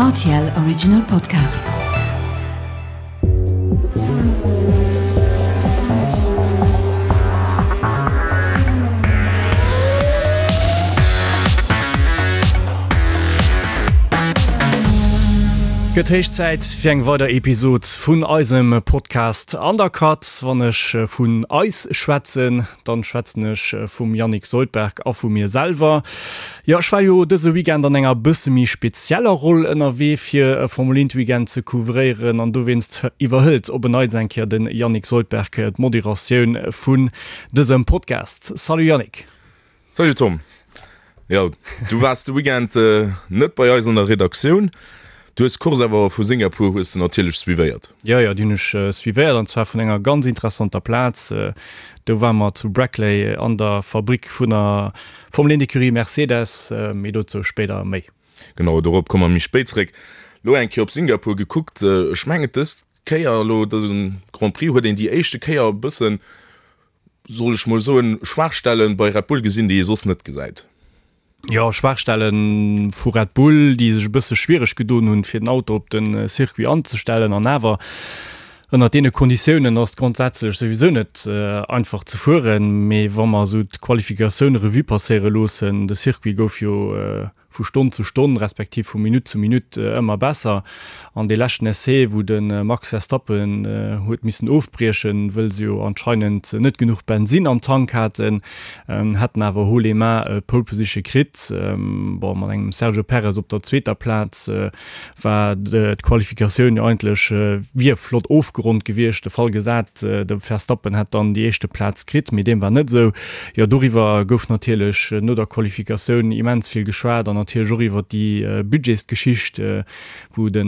Rtl Original Podcast. Gëtt héich Zäit fir eng weider Episod vun eisem Podcast Undercut. Wann ech vun eis schwätzen, dann schwätzen ech vum Yannick Soldberg a vu mir selwer. Jo, ech war jo dëse Weekend an enger bësse méi spezieller Roll ënnerwee fir e Formel 1 Weekend ze couvréieren an dowéinst iwwerhëlt op en Neits eng Kéier de Yannick Soldberg d'Moderatioun vun dësem Podcast. Salut Yannick! Salut Tom! Jo, du waars de Weekend net bei eis an der Redaktioun. Du hues d'Course awer vu Singapur hues de natierlech suivéiert. Jo, jo, déi hunn ech suivéiert an zwar vun enger ganz interessanter Plaz. Do ware mer zu Brackley an der Fabrick vun der Formel 1 Ecurie Mercedes, mee dozou spéider méi. Genau, dorop komme mer méi spéit zeréck. Elo eng Kéier op Singapur gekuckt, ech mengen dës Kéier elo, dëse Grand Prix huet een déi éischte Kéier e bëssen, soll ech mol soen, Schwaachstellen bei Red Bull gesinn, déi ee soss net gesäit. Jo, Schwaachstelle vu Red Bull, déi sech e bësse schwiereg gedoen hunn, fir den Auto op de Circuit anzestellen an awer Ënnert deene Konditiounen ass et grondsätzlech souwisou net einfach ze fueren, mee wa mer esou d'Qualifikatioun Revue passéiere loossen, de Circuit gouf jo vu Stonn zu Stonn, respektiv vu Minutt zu Minutt ëmmer besser an dee leschten Essai, wou de Max Verstappen huet missen ofbriechen, wëll se jo anscheinend net genuch Bensinn am Tank haten, hätten awer haut les mains d'Pole Position kritt, bon mat engem Sergio Perez op der zweeter Plaz. war d'Qualifikatioun jo eigentlech wier flott ofgeronnt gewiescht, de Fall gesat, de Verstappen hätt dann déi éischte Plaz kritt, mee deem war net esou. Jo, doriwwer gouf natierlech no der Qualifikatioun immens vill geschwat an natierlech och iwwer déi Budgetsgeschicht, wou de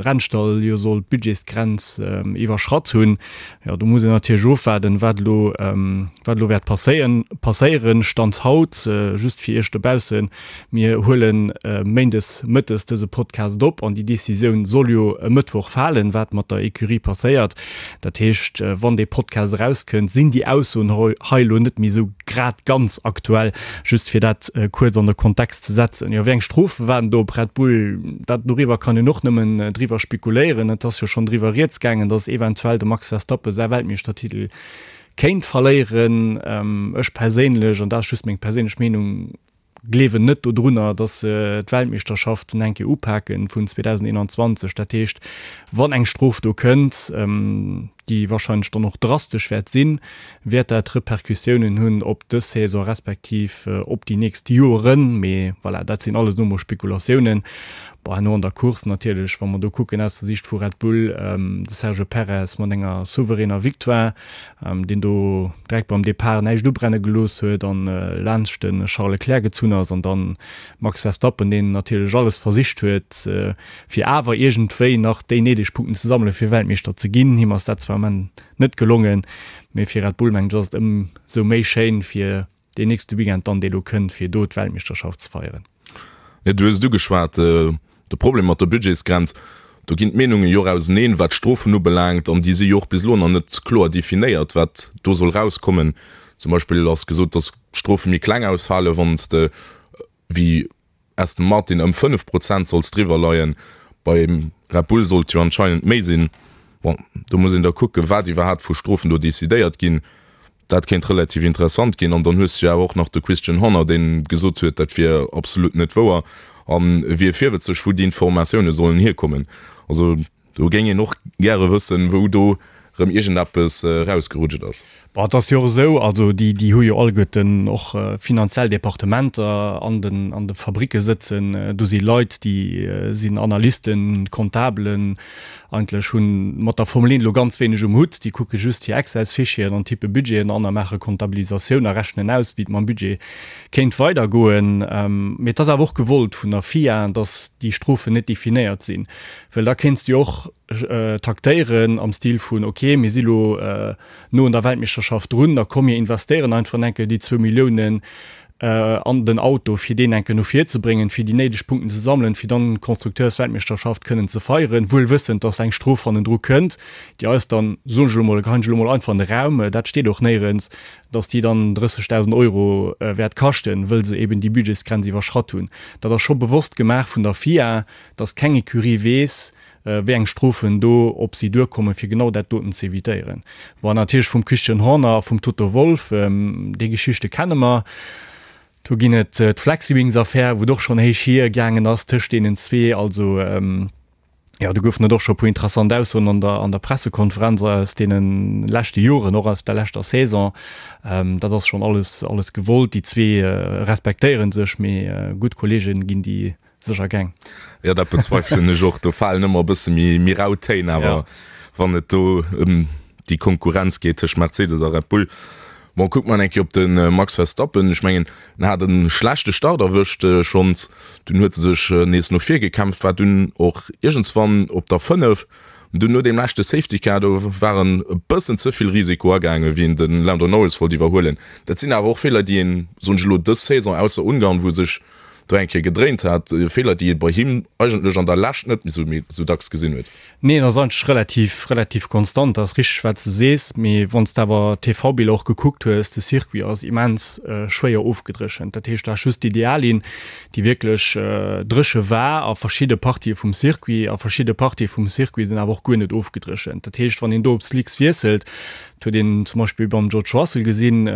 Rennstall jo soll d'Budgetsgrenz iwwerschratt hunn. Jo, do muss een natierlech ofwaarden, wat elo, wat elo wäert passéieren. Stand haut, just fir Iech dobaussen, Mir huele méindes mëttes dëse Podcast op an déi Decisioun soll jo e Mëttwoch falen, wat mat der Ecurie passéiert. Dat heescht, wann dee Podcast erauskënnt, sinn déi Aussoen hei elo net méi esou grad ganz aktuell. Just fir dat kuerz an de Kontext ze setzen. Jo, wéi eng Strofe waarden do op Red Bull? Dat, doriwwer kann een och nëmmen driwwer spekuléieren. Et ass jo schonn driwwer rieds gaangen, datt eventuell de Max Verstappen säi Weltmeeschtertitel kéint verléieren. Ech perséinlech, an dat ass just meng perséinlech Meenung, gleewen net dodrunner, dass se d'Weltmeeschterschaft eng Kéier upaken vun 2021. Dat heescht, wann eng Strof do kënnt, déi wahrscheinlech dann och drastesch wäert sinn, wäert dat Repercussiounen hunn op dës Saison respektiv op déi nächst Joeren. Mee voilà, dat sinn alles elo mol Spekulatiounen. Bon, herno an der Course natierlech, wa mer do kucken aus der Siicht vu Red Bull, de Sergio Perez mat enger souveräner Victoire, deen do direkt beim Depart näischt ubrenne gelooss huet an laanscht de Charles Leclerc gezunn ass an dann Max Verstappen, deen natierlech alles versicht huet, fir awer iergendwéi nach déi néideg Punkten ze sammelen, fir Weltmeeschter ze ginn. Him ass dat zwar am Enn net gelongen, mee fir Red Bull, mengen ech, ass et ëmsou méi schéin, fir deen nächste Weekend dann, dee lo kënnt, fir do d'Weltmeeschterschaft ze feieren. Jo, du hues et ugeschwat, de Problem mat der Budgetsgrenz. Do ginn d'Meenunge jo och auseneen, wat d'Strofen ubelaangt, an déi si jo och bis elo nach net kloer definéiert, wat do soll rauskommen. Zum Beispill ass gesot, datt d'Strofe méi kleng ausfalen, wann s de wéi Aston Martin ëm 5 Prozent solls driwwer leien. Bei Red Bull sollt jo anscheinend méi sinn. Bon, do muss een da kucken, wat iwwerhaapt vu Strofen do decidéiert ginn. Dat kéint relativ interessant ginn. An dann hues du jo awer och nach de Christian Horner, deen gesot huet, dat wier absolut net wouer an e wier virwëtzeg, wou déi Informatioune sollen hierkommen. Also do géing een och gäre wëssen, wou do rëm iergendeppes erausgerutscht ass. Bon, et ass jo och esou, also déi, déi hu jo alleguerten och finanziell Departementer an den, an de Fabricke sëtzen. Do si Leit, déi sinn Analysten, Comptabelen, Eigentlech hunn mat der Formel 1 elo ganz wéineg um Hutt. Déi kucke just hir Excels-Fichieren an tippe Budgeten an a maache Comptabilisatioun a rechnen aus, wéi et mam Budget kéint weidergoen. Mee et ass awer och gewollt vun der FIA, datt déi Strofen net definéiert sinn. Well da kéints du jo och taktéieren am Stil vun, ok, mir si lo no un der Weltmeeschterschaft drun, da komm mir investéieren einfach enke déi zwou Milliounen. An den Auto, fir deen enke no vir ze bréngen, fir déi néideg Punkten ze sammelen, fir dann d'Konstrukteursweltmeeschterschaft kënnen ze feieren, wuel wëssend, dass eng Strof hannendru kënnt, déi eis dann, soen ech elo mol, geheien ech elo mol einfach an de Raum, dat steet och néierens, dass déi dann 30.000 Euro wäert kaschten, wëll se eben déi Budgetsgrenz iwwerschratt hunn. Dat ass scho bewosst gemaach vun der FIA, dass keng Ecurie weess, wéi eng Strofen do op si duerkommen, fir genau dat doten ze evitéieren. Bon, natierlech vum Christian Horner a vum Toto Wolff, déi Geschichte kenne mer. Do ginn et d'Flexiwings-Affär, wou et och schonn héich hier gaangen ass tëscht deenen zwee. Also, jo, do goufen et och scho e puer interessant Aussoen an der, an der Pressekonferenz aus deene leschte Joren, och aus der leschter Saison. Dat ass schonn alles, alles gewollt. Déi zwee respektéiere sech, mee gutt Kolleege ginn déi Sécher geng. Jo, dat bezweifelen ech och. Do falen ëmmer e bësse méi, méi rau Téin, awer wann et do ëm déi Konkurrenz geet tëscht Mercedes a Red Bull. Bon, kucke mer eng Kéier op de Max Verstappen. Ech mengen, en hat e schlechte Start erwëscht schonns, dunn huet e sech nees no vir gekämpft, war dunn och iergendswann op der 5. Dunn no deem leschte Safety Car, do war en e bëssen ze vill Risiko agaangen, wéi en de Lando Norris wollt iwwerhuelen. Dat sinn awer och Feeler, déi een, soen ech elo, dës Saison, ausser Ungarn, wou e sech do eng Kéier gedréint hat, Feeler déi ee bei him eigentlech an der Lescht net méi sou dacks gesinn huet. Nee, en ass eigentlech relativ, relativ konstant, dat ass richteg wat s de sees, mee wann s de awer d'TV-Biller och gekuckt hues, de Circuit ass immens schwéier ofgedréchent, dat heescht du has just d'Ideallinn, déi wierklech dréche war a verschidde Partië vum Circuit, a verschidde Partië vum Circuit sinn awer och guer net ofgedréchent, dat heescht wann een do op Slicks wiesselt, Dat huet een zum Beispill beim George Russell gesinn,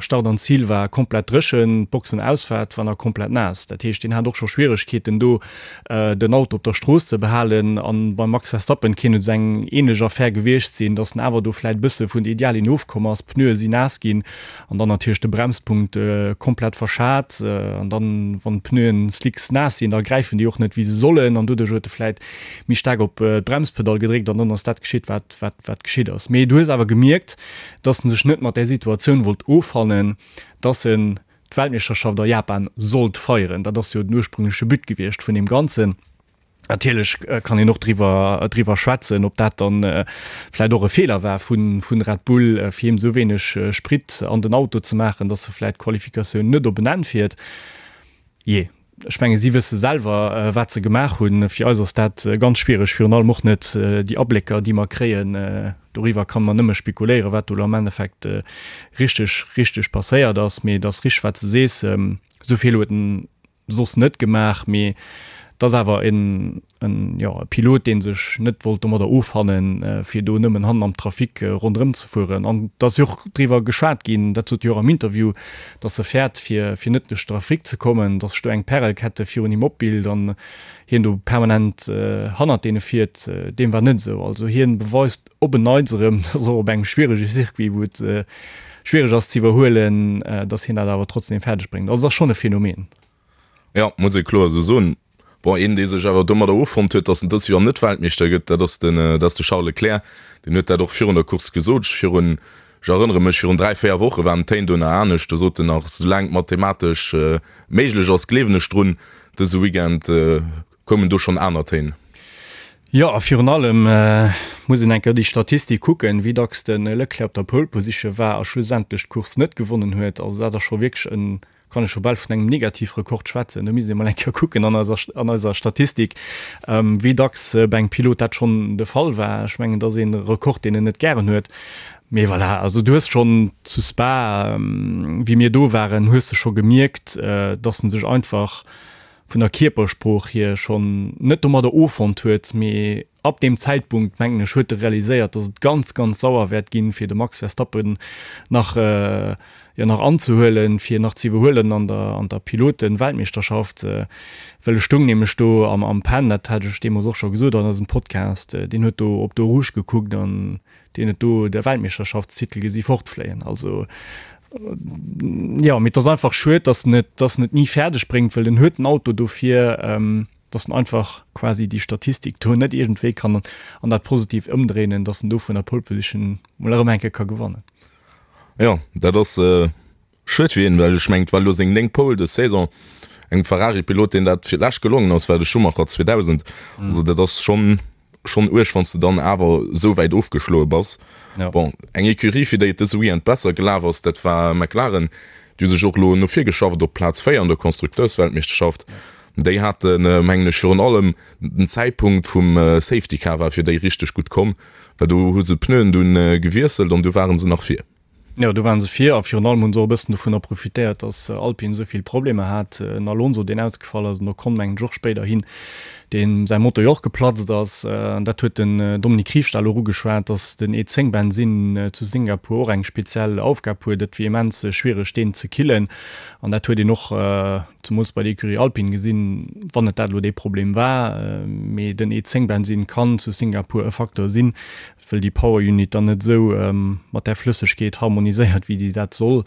Start an Zil war komplett dréchen, d'Boxenausfaart war nach komplett naass. Dat heescht, deen hat och scho Schwieregkeeten do den Auto op der Strooss ze behalen. An beim Max Verstappen kéint et esou eng ähnlech Affär gewiescht sinn, datt en awer do vläit e bësse vun der Ideallinn ofkomm ass, d'Pneue sinn naass ginn an dann natierlech de Bremspunkt komplett verschat. An dann, wann d'Pneuen slicks naass sinn, da gräifen déi och net wéi se sollen an doduerch huet e vläit méi staark op d'Bremspedall gedréckt an dann ass dat geschitt, wat wat, wat geschitt ass. Mee du hues awer gemierkt, dass en sech net mat där Situatioun wollt offannen, dass en d'Weltmeeschterschaft a Japan sollt feieren. Dat ass jo den ursprüngleche But gewiescht vun deem Ganzen. Natierlech kann een och driwwer, driwwer schwätzen, ob dat dann vläicht och e Feeler war vu, vu Red Bull, fir him esou wéineg Sprit an den Auto ze maachen, dass e vläicht d'Qualifikatioun net op en Enn fiert. Jee. Ech menge si wësse selwer, wat se gemaach hunn. Fir eis ass dat ganz schwiereg, virun allem och net déi Ablécker, déi mer kréien. Doriwwer kann mer nëmme spekuléieren, wat do elo am Endeffekt richteg, richteg passéiert ass. Mee et ass richteg, wat s de sees, esou vill huet en soss net gemaach. Mee et ass awer en en, jo, e Pilot, dee sech net wollt domadder offannen, fir do nëmmen hannen am Trafic ronderëm ze fueren. An et ass jo och driwwer geschwat ginn, dat sot jo och am Interview, datt e fäert, fir, fir net duerch Trafic ze kommen, datt sech do eng Pärelkette virun him opbilt an hien do permanent hannert deene fiert. Deem war net esou. Also hien beweist op en Neits erëm, datt och op engem schwierege Circuit, wou et schwiereg ass ze iwwerhuelen, datt hien dat awer trotzdem fäerdeg bréngt. Also et ass schonn e Phänomen. Jo, muss ee kloer esou soen. Bon, een, dee sech awer domadder offonnt huet, datt en dëst Joer net Weltmeeschter gëtt, dat ass den, dat ass de Charles Leclerc. Deen huet dat och virun der Course gesot. Ech virun, ech erënnere mech, virun 3, 4 Woche waren d'Téin do nach anescht. Do sot en nach, Soulaang et mathematesch méiglech ass, gleewen ech drun. Dëse Weekend koumen do schonn aner Téin. Jo, a virun allem muss een eng Kéier déi Statistik kucken, wéi dacks de Leclerc op der Pole Position war a schlussendlech d'Course net gewonnen huet. Also dat ass scho wierklech en kann ech scho bal vun engem Negativrekord schwätzen. Do misst ee mol eng Kéier kucken an eiser, an eiser Statistik, wéi dacks bei engem Pilot dat schonn de Fall war. Ech mengen, dat ass ee Rekord, deen en net gären huet. Mee voilà, also du hues schonn zu Spa, wéi mir do waren, hues de scho gemierkt, dass en sech einfach vun der Kierpersprooch hier schonn net domadder offonnt huet, mee ab deem Zäitpunkt, mengen ech, huet e realiséiert, dass et ganz, ganz sauer wäert ginn, fir de Max Verstappen nach, jo, nach anzehuelen, fir nach ze iwwerhuelen an der, an der Piloten-Weltmeeschterschaft. Well e stoung nämlech do am, am Pen, dat hat ech deemools och scho gesot an eisem Podcast, deen huet do op d'Eau Rouge gekuckt an deen huet do de Weltmeeschterschaftstitel gesi fortfléien. Also, jo, mee et ass einfach schued, dass en et, dass en et ni fäerdeg bréngt, well en huet den Auto dofir, dass en einfach quasi déi Statistik do net iergendwéi kann an dat Positivt ëmdréinen, dass en do vun der Pole Position mol erëm eng Kéier ka gewannen. Jo, dat ass schued fir hien, well ech mengen, et war elo seng néngt Pole dës Saison. Engem Ferrari-Pilot, deen dat fir d'lescht gelongen ass, war de Schumacher 2000. Also dat ass schonn schonn uerg, wann s de dann awer esou wäit ofgeschloe bass. Bon, eng Ecurie, fir déi et dëse Weekend besser gelaf ass, dat war McLaren. Déi hu sech och elo no vir geschafft op Plaz 4 an der Konstrukteursweltmeeschterschaft. Déi haten, mengen ech, virun allem den Zäitpunkt vum Safety Car war fir déi richteg gutt komm, well do hu se d'Pneuen dunn gewiesselt an du ware se nach vir. Jo, do ware se vir a virun allem hu se och e bëssen dovunner profitéiert, datt Alpine esou vill Problemer hat. En Alonso, deen ausgefall ass, en Ocon mengen ech och spéiderhin, deem säi Motor jo och geplatzt ass. An dat huet den Dominique Riefstahl och ugeschwat, datt den E10 Bensinn zu Singapur och eng speziell Aufgab huet. Et wier immens schwiereg, deen ze killen. An dat huet een och zemools bei der Ecurie Alpine gesinn, wann et dat elo dee Problem war. Mee den E10 Bensinn kann zu Singapur e Facteur sinn, wëll déi Power Unit dann net esou mat där Flëssegkeet harmoniséiert, wéi déi dat soll.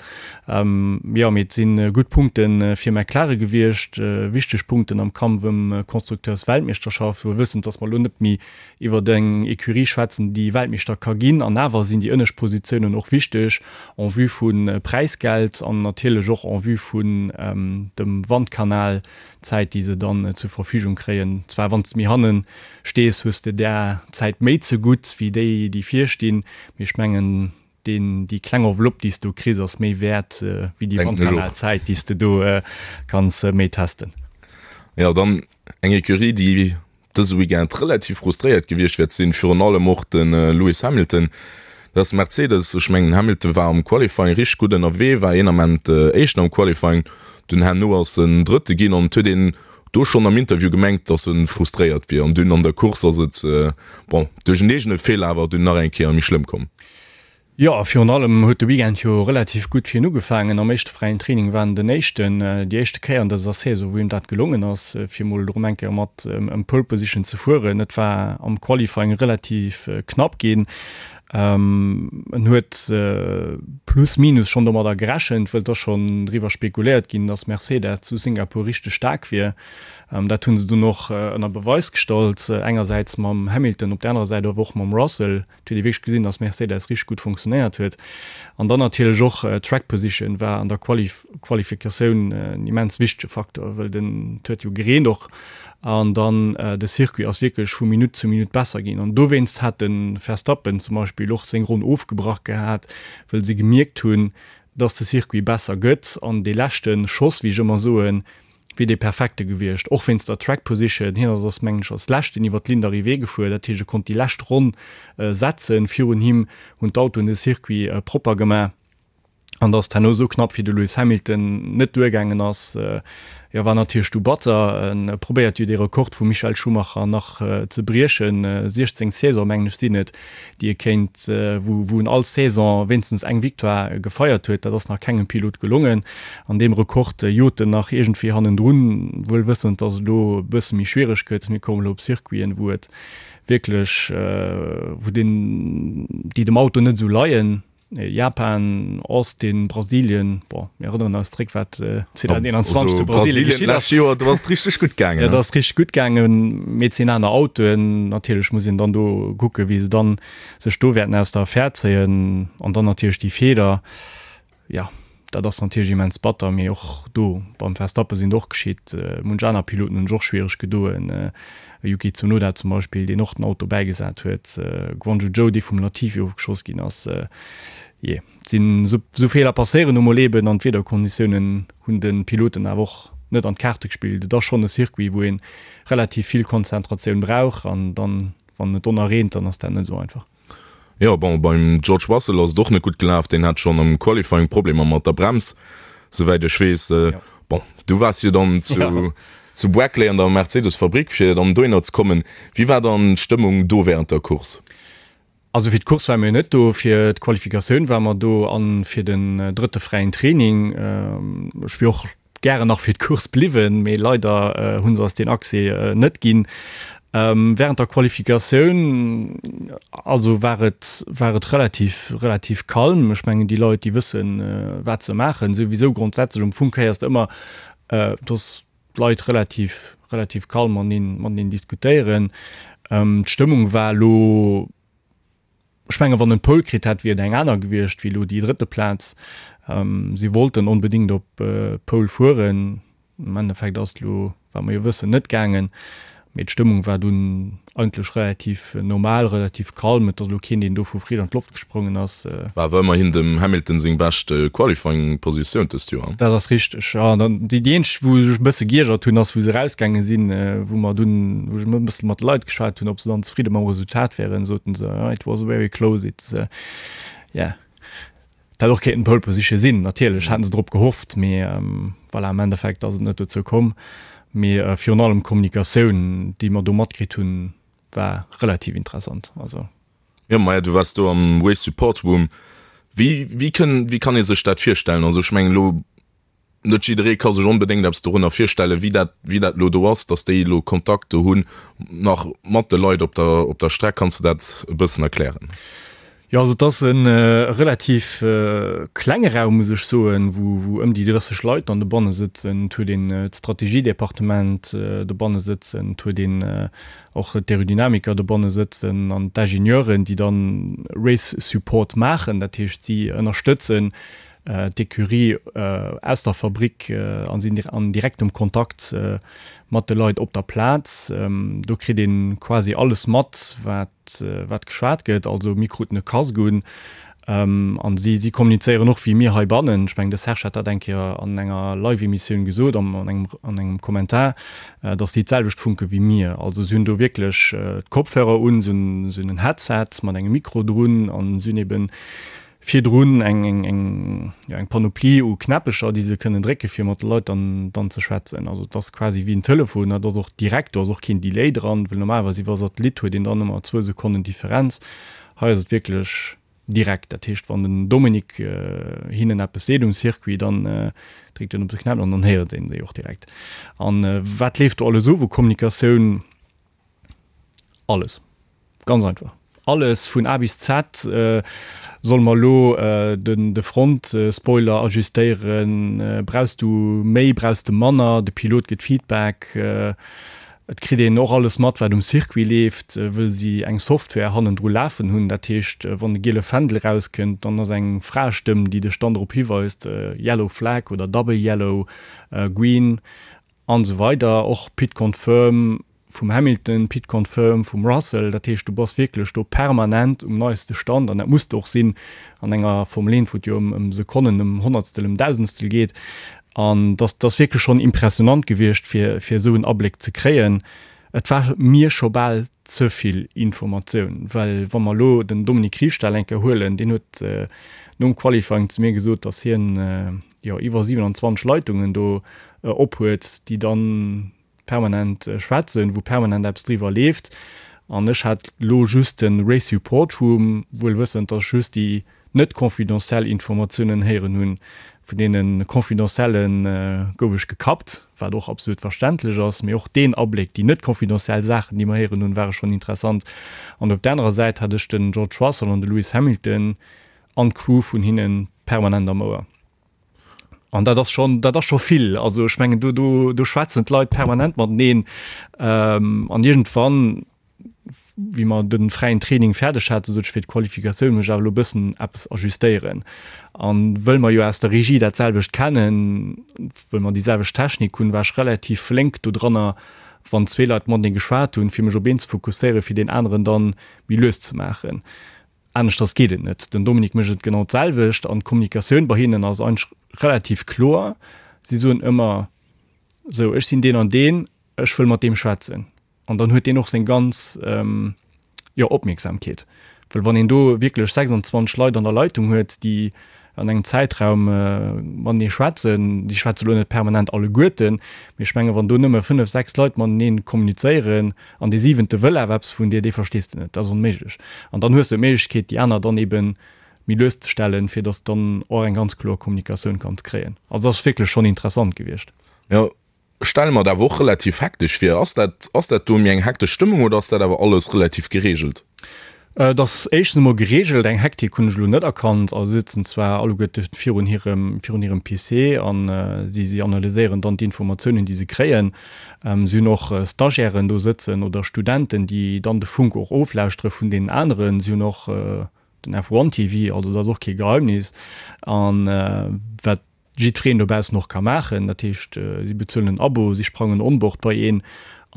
Jo, mee et si gutt Punkte fir McLaren gewiescht, wichteg Punkten am Kampf ëm Constructeursweltmeeschterschaft, wuel wëssend, datt mer elo net méi iwwer eng Ecurie schwätzen, déi Weltmeeschter ka ginn. An awer sinn déi ënnescht Positiounen och wichteg en vue vu Präisgeld an natierlech och en vue vun dem Wandkanal, Zäit, déi se dann zur Verfügung kréien. Zwar wann s de méi hannen stees, hues de där Zäit méi zegutt wéi déi, déi vir stinn, mee ech mengen, deen, déi kleng Enveloppe, déi s du kriss, ass méi wäert wéi déi Wandkanalzäit, déi s de do kanns méi testen. Jo, dann eng Ecurie, déi dëse Weekend relativ frustréiert gewiescht wäert sinn, virun allem och de Lewis Hamilton, dat ass Mercedes. Ech mengen Hamilton war am Qualifying richteg gutt ënnerwee, war een Ament Éischten am Qualifying, dunn herno ass en Drëtte ginn an et huet een do schonn am Interview gemengt, datt e frustréiert wier an dunn an der Course ass et, bon, duerch en eegene Feeler awer dunn nach eng Kéier méi schlëmm komm. Jo, a virun allem huet de Weekend jo relativ gutt fir hien ugefaangen. Am éischte fräien Training war en den Éischten. Déi éischte Kéier an dëser Saison, wou him dat gelongen ass, fir mol erëm eng Kéier mat ëm Pole Position ze fueren. Et war am Qualifying relativ knapp ginn. En huet plus minus schonn domadder gerechent, wëll et ass schonn driwwer spekuléiert ginn, datt Mercedes zu Singapur richteg staark wier. Dat hu se dunn och ënner Beweis gestallt, engersäits mam Hamilton, op der anerer Säit awer och mam Russell. Et huet ee wierklech gesinn, dass Mercedes richteg gutt funktionéiert huet. An dann natierlech och d'Track Position war an der Qualifikatioun en immens wichtege Faktor, wëll den, et huet jo gereent och an dann de Circuit ass wierklech vu Minutt zu Minutt besser ginn. An dowéinst hat de Verstappen zum Beispill och seng Ronn ofgebrach gehat, wëll se gemierkt hunn, dass de Circuit besser gëtt an dee leschte Schoss, wéi ech ëmmer soen, wier dee perfekte gewiescht, och wéinst der Track Position. Hien ass ass mengen ech als leschten iwwer d'Ligne d'arrivée gefuer, dat heescht e konnt déi lescht Ronn setzen. Virun him hunn d'Autoen de Circuit propper gemaach an dass et herno esou knapp fir de Lewis Hamilton net duergaangen ass, jo war natierlech du batter. En probéiert jo dee Rekord vum Michael Schumacher nach ze briechen, 16 Saison mengen ech sinn et, déi e kéint, wou wou en all Saison wéinstens eng Victoire gefeiert huet. Dat ass nach kengem Pilot gelongen. An deem Rekord jot en nach iergendwéi hannendrun, wuel wëssend, datt et elo e bësse méi schwiereg gëtt. Mir kommen elo op Circuiten, wou et wierklech, wou den, déi dem Auto net esou leien. Japan, Austin, Brasilien, bon, mir erënneren eis zréck, wat 2021 zu Brasilien geschitt ass. Joer, do ass et richteg gutt gaangen. Jo, do ass et richteg gutt gaangen, mee et sinn aner Autoen. Natierlech muss een dann do kucken, wéi se dann sech do wäerten aus der Affär zéien. An dann natierlech déi Feeler, jo, dat ass natierlech immens batter, mee och do beim Verstappen sinn et och geschitt. Munch aner Piloten hunn sech och schwiereg gedoen. Yuki Tsunoda zum Beispill, deen och den Auto bäigesat huet, Guanyu Zhou, dee vum Latifi ofgeschoss ginn ass. Jee, et sinn esou Feeler passéieren nu mol eben an d'Wiederkonditiounen hunn de Piloten awer och net an d'Kaarte gespillt. Et ass schonn e Circuit, wou ee relativ vill Konzentratioun brauch an dann, wann et donner reent, dann ass dat net esou einfach. Jo, bon, beim George Russell ass et och net gutt gelaf. Deen hat schonn am Qualifying Problemer mat der Brems, souwäit ech weess. Bon, du waars jo dann zu, zu Brackley an der Mercedes-Fabrick, fir dann dohinner ze kommen. Wéi war dann d'Stëmmung do wärend der Course? Also fir d'Course ware mir net do, fir d'Qualifikatioun ware mer do an fir den drëtte fräien Training. Ech wier och gären nach fir d'Course bliwwen, mee leider hu se eis deen Accès net ginn. Während der Qualifikatioun also war et war et relativ relativ calm. Ech mengen déi Leit déi wëssen wat se maachen souwisou grondsätzlech. Am Fong héiers de ëmmer dass d'Leit relativ relativ calm mateneen mateneen diskutéieren. D'Stëmmung war elo Ech mengen, wann en d'Pole kritt hätt, wier et eng aner gewiescht wéi elo déi drëtte Plaz. Si wollten onbedéngt op d'Pole fueren. Am Endeffekt ass et elo, wat mer jo wëssen, net gaangen. Mee d'Stëmmung war dunn eigentlech relativ normal, relativ calm. Et ass elo keen, deen do vu Freed an d'Loft gesprongen ass. War awer ëmmerhin dem Hamilton seng bescht Qualifying-Positioun dëst Joer. Dat ass richteg, jo. An dann déi eenzeg, wou ech e bësse giergert hunn, ass wou se erausgaange sinn, wou mer dunn, wou ech e bësse mat de Leit geschwat hunn, ob se dann zefridde mam Resultat wären, soten se, it was very close, it's, yeah. Et hätt och kéinten Pole Position sinn, natierlech haten se drop gehofft, mee voilà, am Endeffekt ass et net dozou komm. Mee virun allem d'Kommunikatioun, déi mer do matkritt hunn, war relativ interessant. Also. Jo, maja, du waars do am Race Support Room. Wéi, wéi kënn, wéi kann ee sech dat virstellen? Also ech mengen elo, net jidderee ka sech onbedéngt eppes dorunner virstellen, wéi dat, wéi dat elo do ass, datt déi elo Kontakt do hunn nach mat de Leit op der, op der Streck. Kanns de dat e bëssen erklären? Jo, also et ass e relativ klenge Raum, muss ech soen, wou, wou ëm déi 30 Leit dann dobanne sëtzen. Et huet een d'Strategiedepartement dobanne sëtzen, et huet een och d'Aerodynamiker dobanne sëtzen an d'Ingenieuren, déi dann Race Support maachen, dat heescht si ënnerstëtzen d'Ecurie aus der Fabrick a sinn an direktem Kontakt mat de Leit op der Plaz. Do kritt ee quasi alles mat, wat wat geschwat gëtt. Also mir kruten e Casque un an si si kommunizéieren och wéi mir heibannen. Ech mengen de Serge hat dat eng Kéier an enger Live-Emissioun gesot, an engem an engem Kommentar, datt si d'selwecht funke wéi mir. Also si hunn do wierklech d'Kopfhörer un, si hunn si hunn en Headset mat engem Mikro drun an si hunn eben virdrun eng eng eng jo eng Panoplie u Knäppecher, déi se kënnen drécke fir mat de Leit dann dann ze schwätzen. Also et ass quasi wéi en Telefon, dat ass och direkt, do ass och keen Delay dran, well normalerweis iwwer Satellit huet een dann ëmmer zwou Sekonnen Differenz. Hei ass et wierklech direkt, dat heescht wann den Dominique hinnen eppes seet um Circuit, dann dréckt en op de Knäppel an dann héiert een déi och direkt. An wat leeft do alles of u Kommunikatioun? Alles. Ganz einfach. Alles vun A bis Z. Solle mer elo de Front-Spoiler ajustéieren? Brauchs du méi, brauchs de manner? De Pilot gëtt Feedback. Et kritt een och alles mat, wat um Circuit leeft, wëll si eng Software hannendru lafen hunn. Dat heescht, wann de giele Fändel erauskënnt, dann ass eng Fraestëmm, déi dech dann drop hiweist, Yellow Flag oder Double Yellow, Green. An esou weider, och Pit Confirm vum Hamilton, Pit Confirm vum Russell, dat heescht du bass wierklech do permanent um neiste Stand an dat muss de och sinn an enger Formel 1, wou et jo ëm Sekonnen, ëm Honnertstel, ëm Dausendstel geet. An dass ass wierklech schonn impressionant gewiescht fir fir esou en Abléck ze kréien. Et war mir scho bal ze vill Informatioun, well wa mer elo den Dominique Riefstahl eng Kéier huelen, deen huet nom Qualifying zu mir gesot, datt hien jo iwwer 27 Leitungen do ophuet, déi dann permanent schwätzen, wou permanent eppes driwwer leeft. An ech hat elo just de Race Support Room, wuel wëssend, datt ech just déi net confidentiel Informatiounen héieren hunn. Vun deene confidentielle gouf ech gekappt, wat och absolut verständlech ass. Mee och deen Abléck, déi net confidentiel Saachen, déi mer héieren hunn, ware schonn interessant. An op der anerer Säit hat ech den George Russell an de Lewis Hamilton an d'Crew vun hinne permanent am Ouer. An dat ass schonn, dat ass scho vill. Also ech mengen, do, do, do schwätzen d'Leit permanent mateneen. An iergendwann, wéi mer de fräien Training fäerdeg haten, sot ech fir d'Qualifikatioun muss ech awer elo e bëssen eppes ajustéieren. An wëll mer jo aus der Regie dat selwecht kennen, wëll mer déi selwecht Technik hunn, war ech relativ flénk dodranner, wann zwee Leit matenee geschwat hunn, fir mech op een ze fokusséieren, fir deen aneren dann méi lues ze maachen. Aneschters geet et net. Den Dominique mécht et genau d'selwecht an d'Kommunikatioun bei hinnen ass eigentlech relativ kloer. Si soen ëmmer, sou ech sinn deen an deen, ech wëll mat deem schwätzen. An dann huet deen och seng ganz, jo, Opmierksamkeet. Well wann een do wierklech 26 Leit an der Leitung huet, déi an engem Zäitraum matenee schwätzen, déi schwätze lo net permanent alleguerten, mee ech menge wann do nëmme 5, 6 Leit matenee kommunizéieren an dee siwente wëll awer eppes vun dir, dee verstees de net, dat ass onméiglech. An dann hues de d'Méiglechkeet déi aner dann ebe méi lues ze stellen, fir datt s dann och eng ganz kloer Kommunikatioun kanns kréien. Also dat ass wierklech schonn interessant gewiescht. Jo, Ech stelle mer et awer och relativ hektesch vir. Ass dat, ass dat do méi eng hektesch Stëmmung oder ass dat awer alles relativ geregelt? Et ass éischtens emol geregelt. Eng Hektik hunn ech elo net erkannt. Also si sëtzen zwar alleguerte virun hirem, virun hirem PC a si, si analyséieren dann d'Informatiounen, déi se kréien. Si hunn och Stagiairen do sëtzen oder Studenten, déi dann de Funk och oflauschtere vun deenen aneren. Si hunn och den F1 TV, also dat ass och kee Geheimnis. An wat jiddwereen dobaussen och ka maachen. Dat heescht, si bezuelen en Abo, si sprangen onboard bei een.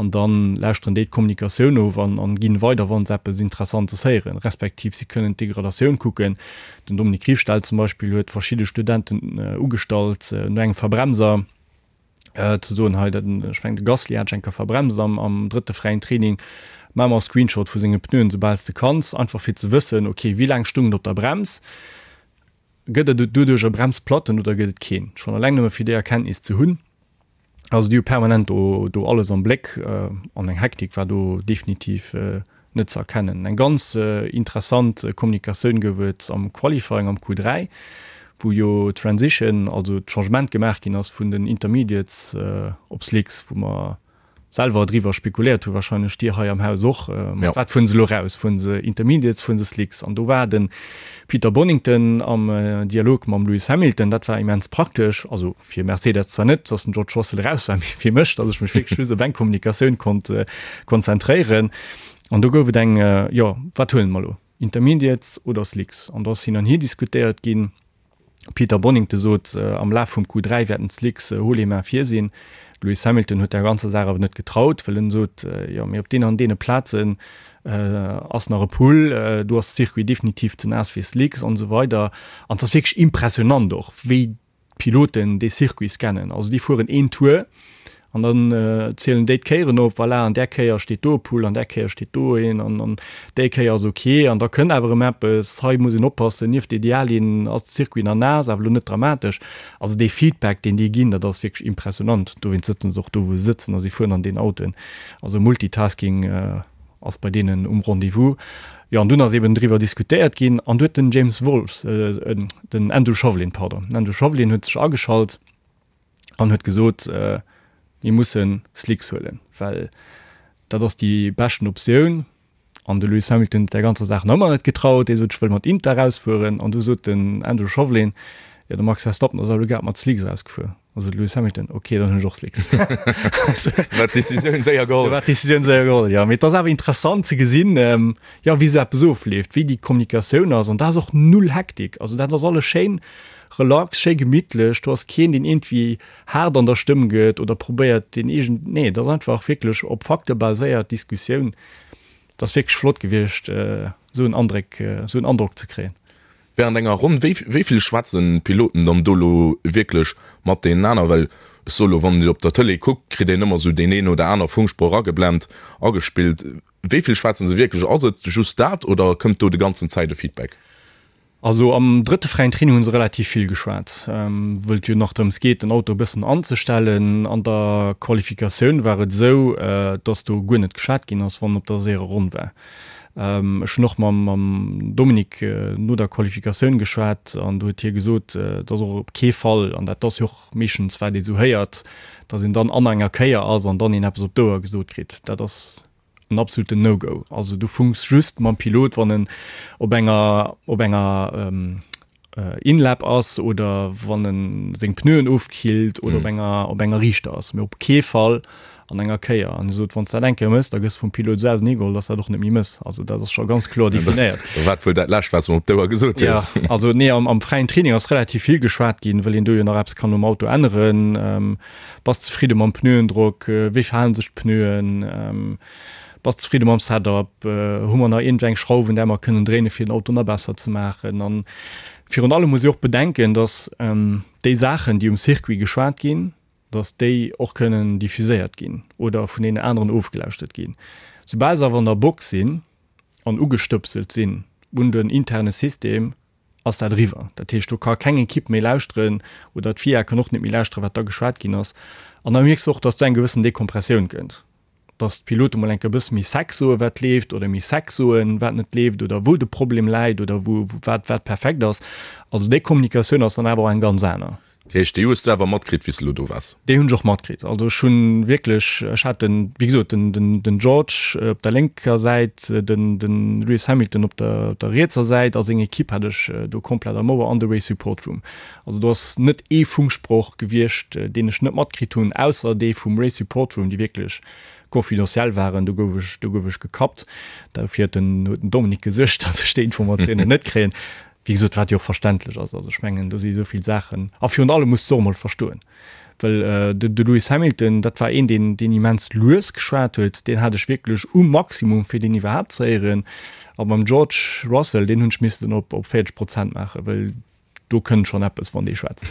An da lauschteren déi d'Kommunikatioun of an an ginn weider, wa se eppes Interessantes héieren, respektiv si kënnen d'Degradatioun kucken. Den Dominique Riefstahl zum Beispill huet verschidde Studenten ugestallt, no engem Verbremser ze soen, hei, dat, ech mengen de Gasly hat ech eng Kéier verbremst am am drëtte fräien Training, maach mer e Screenshot vu senge Pneuen, soubal s de kanns, einfach fir ze wëssen, ok, wéi laang stung et op der Brems, gëtt et doduerch e Bremsplatten oder gëtt et keen? Schonn eleng nëmme fir déi Erkenntnis ze hunn. Also déi hu permanent do do alles am Bléck an eng Hektik war do definitiv net ze erkennen. Eng ganz interessant Kommunikatioun gouf et am Qualifying am Q3, wou jo d'Transition, also d'Changement gemaach ginn ass vun den Intermediates op Slicks, wou mer selwer driwwer spekuléiert hu, wahrscheinlech dir hei am Haus och, mat wat fueren se elo raus, fueren se Intermediates, fueren se Slicks? An do war de Peter Bonnington am Dialog mam Lewis Hamilton, dat war immens praktesch, also fir Mercedes zwar net, datt den George Russell eraus war, mee fir mech, datt ech mech wierklech just op eng Kommunikatioun konnt konzentréieren. An do gouf et eng, jo, wat huelen mer elo, Intermediates oder Slicks? An do ass hin an hier diskutéiert ginn. Peter Bonnington sot, am Laf vum Q3 wäerten d'Slicks haut les mains vir sinn. De Lewis Hamilton huet der ganzer Saach awer net getraut, well en sot, jo mee op deenen an deene Plazen ass nach e Pull, do ass de Circuit definitiv ze naass fir Slicks an esou weider. An et ass wierklech impressionant och, wéi d'Piloten dee Circuit scannen. Also déi fueren een Tour An dann zielen déi d'Kéieren op, voilà, an där Kéier steet do e Pull, an där Kéier steet do een, an an déi Kéier ass ok. An da kënnt awer erëm eppes, hei muss een oppassen, nieft der Ideallinn ass de Circuit nach naass, awer elo net dramatesch. Also dee Feedback, deen déi ginn, dat ass wierklech impressionant. Dowéinst sëtzen se och do, wou se sëtzen a si fueren an deenen Autoen. Also Multitasking ass bei deenen um Rendez-vous. Jo, an dunn ass eben driwwer diskutéiert ginn an du huet den James Wolfs, den Andrew Shovlin, pardon, den Andrew Shovlin huet sech ageschalt, an huet gesot, mir musse Slicks huelen, well dat ass déi beschten Optioun. An de Lewis Hamilton huet där ganzer Saach nach ëmmer net getraut, dee sot, ech wëll mat Inter erausfueren. An du sot den Andrew Shovlin, jo de Max Verstappen ass awer elo grad mat Slicks erausgefuer. An sot de Lewis Hamilton, ok, dann hunn ech och Slicks. War d'Decisioun séier geholl. War d'Decisioun séier geholl, jo. Mee et ass awer interessant ze gesinn, jo, wéi esou eppes ofleeft, wéi déi Kommunikatioun ass. An da ass och null Hektik. Also dat ass alles schéin Relax, schéi gemittlech, do ass keen deen iergendwéi haart an der Stëmm gëtt oder probéiert deen eegen, nee et ass einfach wierklech op Fakte baséiert Diskussioun. Et ass wierklech flott gewiescht esou en Andréck, esou en Androck ze kréien. Während enger Ronn, wéi wéi vill schwätzen d'Piloten dann do elo wierklech mat deenen aner? Well ech soe lo, wann een op der Tëlee kuckt, kritt een ëmmer esou deen een oder aner Funksproch ageblent, agespillt. Wéi vill schwätzen se wierklech? Ass et just dat oder kënnt do de ganzen Zäit e Feedback? Also am drëtte fräien Training hu se relativ vill geschwat, wëll et jo nach drëms geet, den Auto e bëssen anzestellen. An der Qualifikatioun war et esou, dass do guer net geschwat ginn ass, wann op der séierer Ronn war. Ech hunn och mam Dominique no der Qualifikatioun geschwat an do huet hie gesot, dass och op kee Fall, an dat ass jo och meeschtens wat ee sou héiert, dass een dann an enger Kéier ass an dann een eppes op d'Ouer gesot kritt. Dat ass en absoluten No-Go. Also du funks just mam Pilot, wann en op enger op enger In-Lap ass oder wann en seng Pneuen ofkillt oder op enger op enger Riichter ass, mee op kee Fall an enger Kéier. An e sot, wann s dat eng Kéier mëss, da gëss vum Pilot esou auseneegeholl, dass dat och net méi mëss. Also dat ass scho ganz kloer definéiert. Dat war wuel dat lescht, wat s de em op d'Ouer gesot hues. Ja, also nee, am am fräien Training ass relativ vill geschwat ginn, well een do jo nach eppes kann um Auto änneren. Bass zefridde mam Pneuendrock? Wéi verhalen sech d'Pneuen? Bass zefridde mam Setup? Hu mer nach iergendwéi eng Schrauf un där mer kënnen dréinen, fir den Auto nach besser ze maachen? An virun allem muss ee och bedenken, dass déi Saachen, déi um Circuit geschwat ginn, dass déi och kënnen diffuséiert ginn oder vun deenen aneren ofgelauschtert ginn. Soubal se awer an der Box sinn an ugestëpselt sinn un den interne System, ass dat eriwwer. Dat heescht, do ka keng Ekipp méi lauschteren oder d'FIA kann och net méi lauschteren, wat da geschwat ginn ass. An da mierks de och, dass do eng gewëssen Dekompressioun kënnt, dass d'Pilote mol eng Kéier e bësse méi sec soen, wat leeft, oder méi sec soen, wat net leeft oder wou de Problem läit oder wou wat wat perfekt ass. Also déi Kommunikatioun ass dann awer och eng ganz aner. Dat heescht, déi hues du awer matkritt, wéi s de elo do waars? Déi hunn ech och matkritt. Also ech hunn wierklech, ech hat den, wéi gesot, den, den, den George op der lénker Säit, den, den Lewis Hamilton op der, op der rietser Säit a seng Ekipp hat ech do komplett am Ouer an de Race Support Room. Also do ass net ee Funksproch gewiescht, deen ech net matkritt hunn, ausser dee vum Race Support Room, déi wierklech confidentiel waren. Do gouf ech, do gouf ech gekappt. Dofir huet den, huet den Dominique gesuergt, datt ech déi Informatiounen net kréien. Wéi gesot, wat jo och verständlech ass. Also ech mengen, do si esou vill Saachen. A virun allem muss de och emol verstoen, well de Lewis Hamilton, dat war een, deen, deen immens lues geschwat huet, deen hat ech wierklech um Maximum, fir deen iwwerhaapt ze héieren. A beim George Russell, deen hunn ech missen op 40 Prozent maachen, well do kënnt schonn eppes, wann dee schwätzt.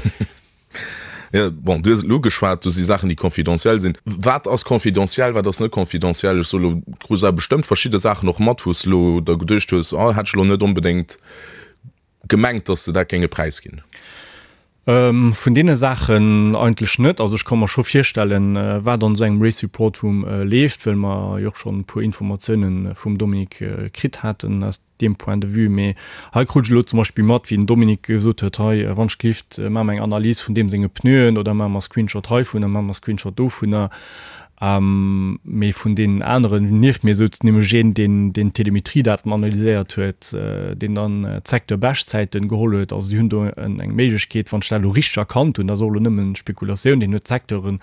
Jo, bon, du hues et elo ugeschwat, do si Saachen, déi confidentiel sinn. Wat ass confidentiel, wat ass net confidentiel? Ech soe lo, du krus awer bestëmmt verschidde Saachen och mat, wou s de elo der geduecht hues, oh, hätt ech elo net onbedéngt gemengt, datt se dat géinge präisginn. Vun deene Saachen eigentlech net. Also ech ka mer scho virstellen, wat an esou engem Race Report Room leeft, well mer jo och schonn e puer Informatiounen vum Dominique kritt haten aus deem Point de vue. Mee hei krut ech elo zum Beispill mat, wéi den Dominique gesot huet, hei, wann ech gelift, maache mer eng Analys vun deem senge Pneuen oder maache mer Screenshot heivunner, maache mer Screenshot dovunner. Mee vun deenen aneren, nieft mir souz nämlech een, deen deen d'Telemetriedaten analyséiert huet, deen dann d'Secteur-Beschtzäiten geholl huet. Also si hunn do eng Méiglechkeet, wann ech dat elo richteg erkannt hunn, dat ass och elo nëmmen Spekulatioun, deen huet d'Secteuren,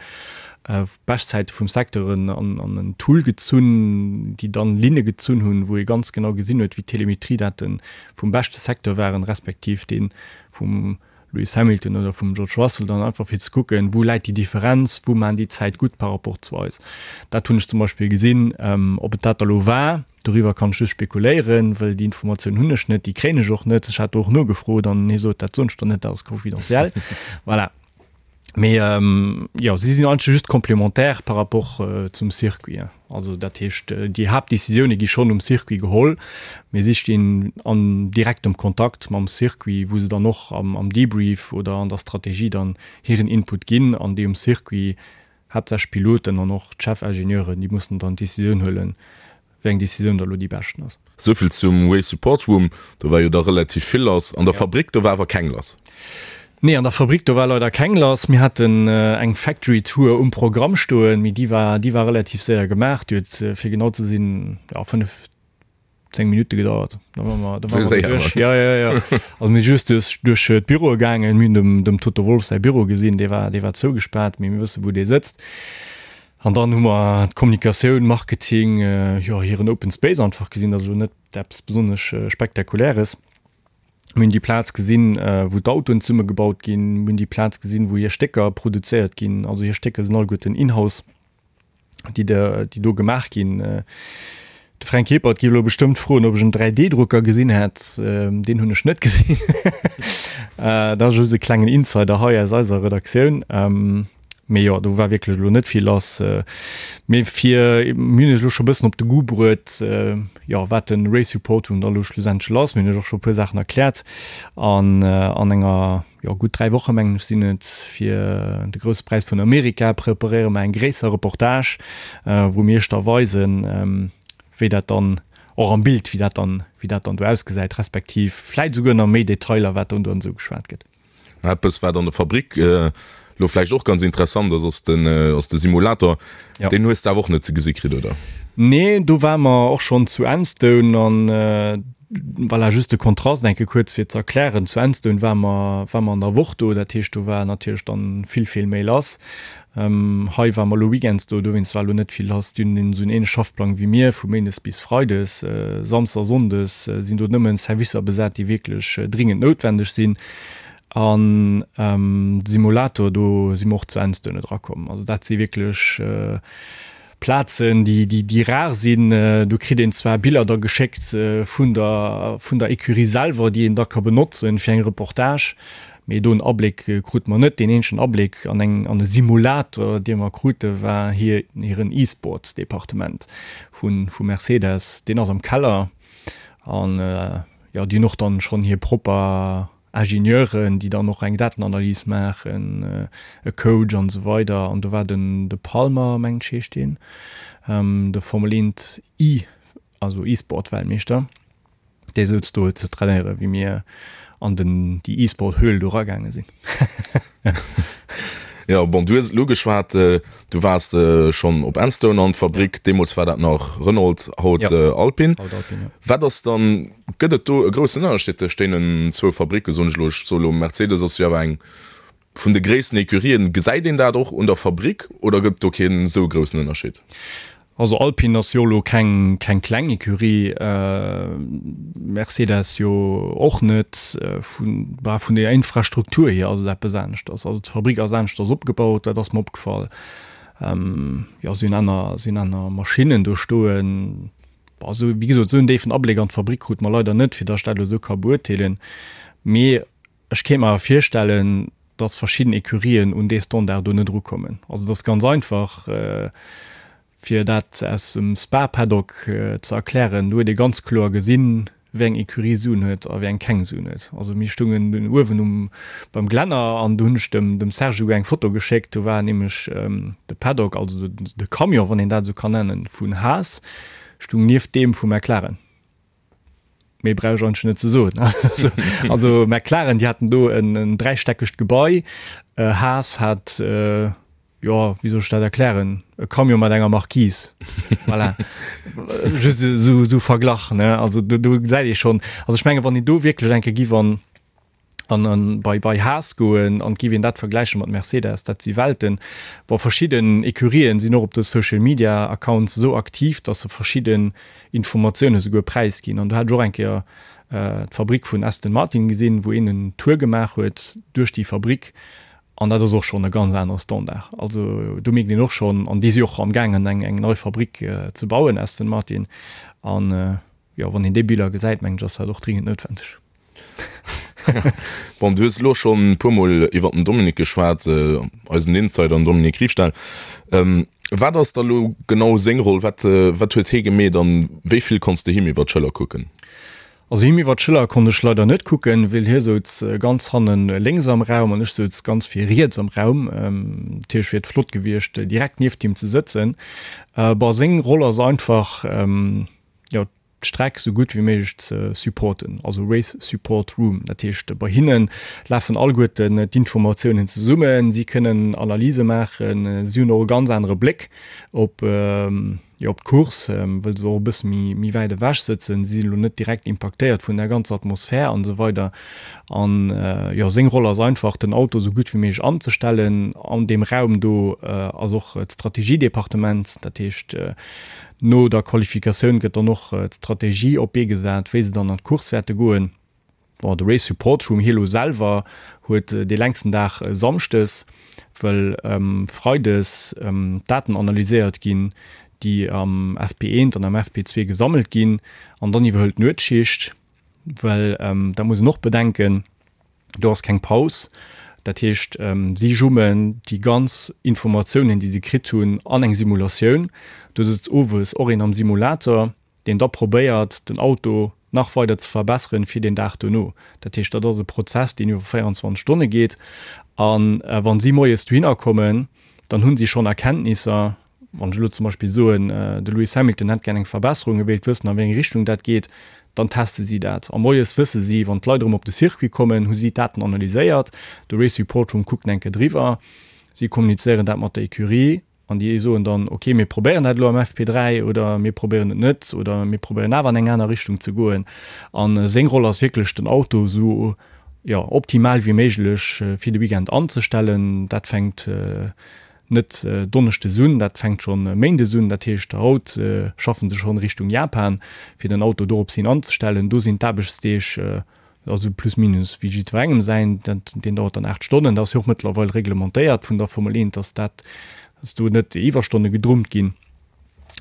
Beschtzäite vum Secteuren an en Tool gezunn, déi dann Linne gezunn hunn, wou ee ganz genau gesinn huet, wéi d'Telemetriedaten vum beschte Secteur waren, respektiv dee vum Lewis Hamilton oder vum George Russell, dann einfach fir ze kucken, wou läit déi Differenz, wou maachen déi d'Zäit gutt par rapport zu eis. Dat hunn ech zum Beispill gesinn. Ob et dat da lo war, doriwwer kann ech just spekuléieren, well déi Informatioun hunn ech net, déi kréien ech och net. Ech hat do och nogefrot an hie sot, dat soen ech der net, dat ass confidentiel. Voilà. Mee jo, si sinn eigentlech just complémentaire par rapport zum Circuit. Also dat heescht, déi Haaptdecisioune gi schonn um Circuit geholl, mee si stinn an direktem Kontakt mam Circuit, wou se dann och am Debrief oder an der Strategie dann hiren Input ginn an déi um Circuit, haaptsächlech d'Piloten an och d'Chefingenieuren, déi mussen dann d'Decisioun huelen, wéi eng Decisioun da lo déi beschten ass. Souvill zum Race Support Room, do war jo da relativ vill lass. An der Fabrik, do war awer keng lass. Nee, an der Fabrik, do war leider keng lass. Mir haten eng Factory Tour um Programm stoen, mee déi war, déi war relativ séier gemaach. Déi huet, fir genau ze sinn, jo, 5, 10 Minutte gedauert. Da ware mer, da ware mer duerch. Jo, jo, jo. Also mir si just duerch, duerch d'Büroe gaangen. Mir hunn dem, dem Toto Wolff säi Büro gesinn, dee war, dee war zougespaart, mee mir wësse wou dee sëtzt. An dann hu mer d'Kommunikatioun, Marketing, jo hiren Open Space einfach gesinn, dat ass elo net eppes besonnesch Spektakuläres. Mir hunn déi Plaz gesinn, wou d'Autoen zesummegebaut ginn. Mir hunn déi Plaz gesinn, wou hir Stécker produzéiert ginn. Also hir Stécker sinn alleguerten in-house, déi déi do gemaach ginn. De Fränk Ebert géif elo bestëmmt froen, ob ech en 3D-Drucker gesinn hätt. Deen hunn ech net gesinn. Dat ass just e klengen Insider hei aus eiser Redaktioun. Mee jo, do war wierklech elo net vill lass. Mee fir, mir hunn iech elo scho bëssen op de Goût bruet, jo, wat de Race Report Room da elo schlussendlech ass. Mir hunn iech och scho e puer Saachen erkläert. An an enger, jo, gutt 3 Woche mengen ech sinn et, fir de Grousse Präis vun Amerika preparéiere mer eng gréisser Reportage, wou mir iech da weisen, wéi dat dann och am Bild, wéi dat dann, wéi dat dann do ausgesäit, respektiv vläit esouguer nach méi Detailer, wat dann do esou geschwat gëtt. Eppes wat an der Fabrik lo vläicht och ganz interessant ass, ass den ass de Simulator. Ja. Deen hues de awer och net ze gesi kritt, oder? Nee, do ware mer och schonn zu Enstone an voilà, just de Kontrast eng Kéier kuerz fir ze erklären, zu Enstone ware mer ware mer an der Woch do, dat heescht do war natierlech dann vill vill méi lass. Hei ware mer elo weekends do, dowéinst war elo net vill lass. Déi hunn esou en ähnleche Schaffplang wéi mir, vu méindes bis freides. Samsdes a sonndes sinn do nëmmen Servicer besat, déi wierklech dringend noutwendeg sinn. An de Simulator, do si mer och zu Enstone erakomm. Also dat si wierklech Plazen, déi rar sinn. Do kritt een zwar Biller da geschéckt vun der vun der Ecurie selwer, déi een da ka benotzen fir eng Reportage, mee do en Abléck krute mer net. Deen eenzegen Abléck an eng an e Simulator, dee mer krute war hir hiren E-Sports-Departement vu vu Mercedes. Deen ass am Keller an jo, déi hunn och dann schonn hir propper Ingenieuren, déi dann och eng Datenanalys maachen, e Coach an esou weider. An do war den de Palmer, mengen ech heescht deen, de Formel 1 E, also E-Sport-Weltmeeschter, dee souz do ze trainéieren, wéi mir an den déi E-Sport-Höhl do eragaange sinn. Jo, bon, du hues et elo geschwat, du waars schonn op Enstone an d'Fabrik, deemools war dat nach Renault, haut Alpine. Wat ass dann Gëtt et do e groussen Ënnerscheed tëscht deenen zwou Fabricken, soen ech elo? Ech soe elo, Mercedes ass jo awer eng vun de gréissten Ecurien. Gesäit een dat och un der Fabrik oder gëtt et do keen esou groussen Ënnerscheed? Also Alpine ass jo elo keng keng kleng Ecurie, Mercedes jo och net. Vun bah vun der Infrastruktur hier ass et eppes aneschters. Also d'Fabrik ass aneschters opgebaut, dat ass mer opgefall. Jo si hunn aner si hunn aner Maschinnen do stoen. Bon esou wéi gesot esou en déifen Abléck an d'Fabrik krute mer leider net, fir datt ech dat elo esou ka beurteelen. Mee Ech kéint mer awer virstellen, dass verschidden Ecurien un dee Standard do net erukommen. Also et ass ganz einfach, fir dat aus dem Spa-Paddock ze erklären, do huet ee ganz kloer gesinn, wéi eng Ecurie Suen huet a wéi eng keng Suen huet. Also mir stungen dunn uewen um beim Glänner an do hunn ech dem dem Serge esouguer eng Foto geschéckt, do war nämlech de Paddock, also de Camion, wann een dat esou kann nennen, vun Haas stung nieft deem vu McLaren. Méi brauch ech eigentlech net ze soen. Also McLaren, déi haten do en dräistäckegt Gebai. Haas hat, jo, wéi soll ech dat erklären, e Camion mat enger Marquise. Voilà. Just esou, esou Verglach, ne? Also do, do gesäit ee schonn, also ech menge wann een do wierklech eng Kéier giff an an an bei bei Haas goen an giff een dat vergläiche mat Mercedes, dat si Welten. Bon, verschidden Ecurien sinn och op de Social Media Accounts esou aktiv, dass se verschidden Informatioune souguer präisginn. An do hat ech och eng Kéier d'Fabrik vun Aston Martin gesinn, wou een en Tour gemaach huet duerch déi Fabrik an dat ass och schonn e ganz anere Standard. Also do mierkt een och schonn, an déi si och amgaangen eng eng nei Fabrik ze bauen, Aston Martin, an jo, wann een déi Biller gesäit, mengen ech, ass dat och dringend noutwendeg. Bon, du hues elo schonn e puermol iwwer den Dominique geschwat, eisen Insider, den Dominique Riefstahl. Wat ass da lo genau seng Roll? Wat, wat huet hie gemeet an wéi vill konns de him iwwer d'Schëller kucken? Also him iwwer d'Schëller konnt ech leider net kucken, well hie souz ganz hannen lénks am Raum an ech souz ganz vir riets am Raum. Natierlech wier et flott gewiescht, direkt nieft him ze sëtzen. Bon, seng Roll ass einfach, jo, d'Streck sou gutt wéi méiglech ze supporten, also Race Support Room. Dat heescht, bei hinne lafen alleguerten d'Informatiounen zesummen, si kënnen Analyse maachen, si hunn och e ganz anere Bléck op, jo, op d'Course, wëll se och e bësse méi, méi wäit ewech sëtzen. Si sinn elo net direkt impaktéiert vun der ganzer Atmosphär an esou weider. An, jo, seng Roll ass einfach, den Auto sou gutt wéi méiglech anzestellen. An deem Raum do ass och d'Strategiedepartement, dat heescht, No der Qualifikatioun gëtt dann och d'Strategie op d'Bee gesat, wéi se dann an d'Course wäerte goen. Bon, de Race Support Room hie lo selwer huet dee längsten Dag samschdes, wëll freides d'Daten analyséiert ginn, déi am FP1 an am FP2 gesammelt ginn. An dann iwwerhëlt d'Nuetsschicht, well dat muss een och bedenken, Do ass keng Paus. Dat heescht, si jummen déi ganz Informatiounen, déi si kritt hunn, an eng Simulatioun. Do sëtzt owes och een am Simulator, deen da probéiert, den Auto nach weider ze verbesseren fir deen Dag dono. Dat heescht, dat ass e Prozess, deen iwwer 24 Stonne geet. A wa si moies dohinner kommen, dann hu si schonn Erkenntnisser, Wann ech elo zum Beispill soen, de Lewis Hamilton hätt gär eng Verbesserung, e wéilt wëssen, a wéi eng Richtung dat geet, dann teste si dat. A moies wësse si, wann d'Leit erëm op de Circuit kommen, hu si d'Daten analyséiert, de Race Report Room kuckt eng Kéier driwwer, si kommunizéieren dat mat der Ecurie an déi soen dann, ok, mir probéieren dat elo am FP3 oder mir probéieren et net oder mir probéieren awer an eng aner Richtung ze goen. A seng Roll ass wierklech, den Auto esou, jo, optimal wéi méiglech fir de Weekend anzestellen. Dat fänkt Net Donneschdes un, dat fänkt schonn Méindes un. Dat heescht, haut schaffen se schonn Richtung Japan, fir den Auto dorops hin anzestellen. Do sinn d'Aarbechtsdeeg also plus minus wéi jiddwerengem säin. Deen dauert dann 8 Stonnen. Dat ass jo och mëttlerweil reglementéiert vun der Formel 1, dass dat, dass do net Iwwerstonne gedrummt ginn.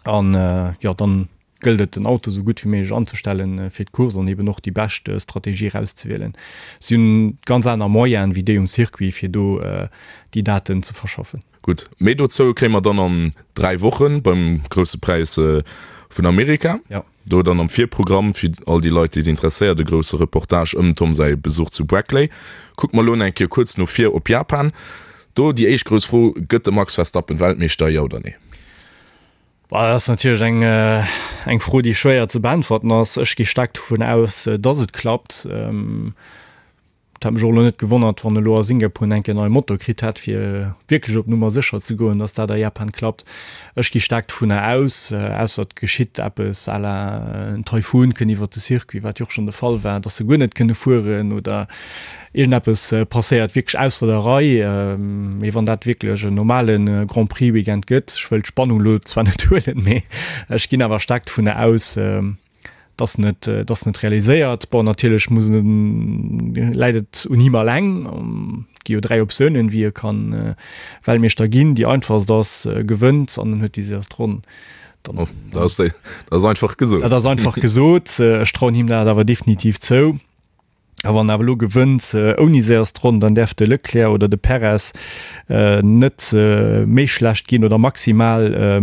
An jo, dann gëllt et den Auto sou gutt wéi méiglech anzestellen fir d'Course an eben och déi bescht Strategie erauszewielen. Si hunn ganz aner Moyenen wéi déi um Circuit fir do déi Daten ze verschaffen. Gutt, méi dozou kréie mer dann an 3 Wochen beim Grousse Präis vun Amerika. Jo. Do dann am Virprogramm fir all déi Leit déi et interesséiert e grousse Reportage ëm Tom säi Besuch zu Brackley. Kucke mer elo nach eng Kéier kuerz no vir op Japan. Do déi éischt grouss Fro, Gëtt de Max Verstappen Weltmeeschter, jo oder nee? Dat ass natierlech eng, eng Fro, déi schwéier ze beäntwerten ass. Ech gi staark dovun aus, dass et klappt. Et hätt mech och elo net gewonnert, wann e lo a Singapur enk en neie Motor kritt hätt, fir wierklech op Nummer sécher ze goen, dass dat a Japan klappt. Ech gi staark dovunner aus, ausser et geschitt eppes à la en Taifun kënn iwwert de Circuit, wat jo och schonn de Fall war, dass se guer net kënne fueren oder iergendeppes passéiert wierklech ausser der Rei. Mee wann dat wierklech en normale Grand Prix Weekend gëtt, ech wëll d'Spannung elo zwar net huelen, mee ech ginn awer staark dovunner aus, dass en et, dass en et realiséiert. Bon, natierlech muss en, läit et un him alleng. Et gi jo 3 Optiounen, wéi e kann Weltmeeschter ginn. Déi einfachst ass, e gewënnt an en huet déi séierst Ronn. Dann, oh, dat ass, dat ass einfach gesot. Dat ass einfach gesot. Ech trauen him dat awer definitiv zou. A wann en awer elo gewënnt ouni séierst Ronn, dann däerf de Leclerc oder de Perez net méi schlecht ginn oder maximal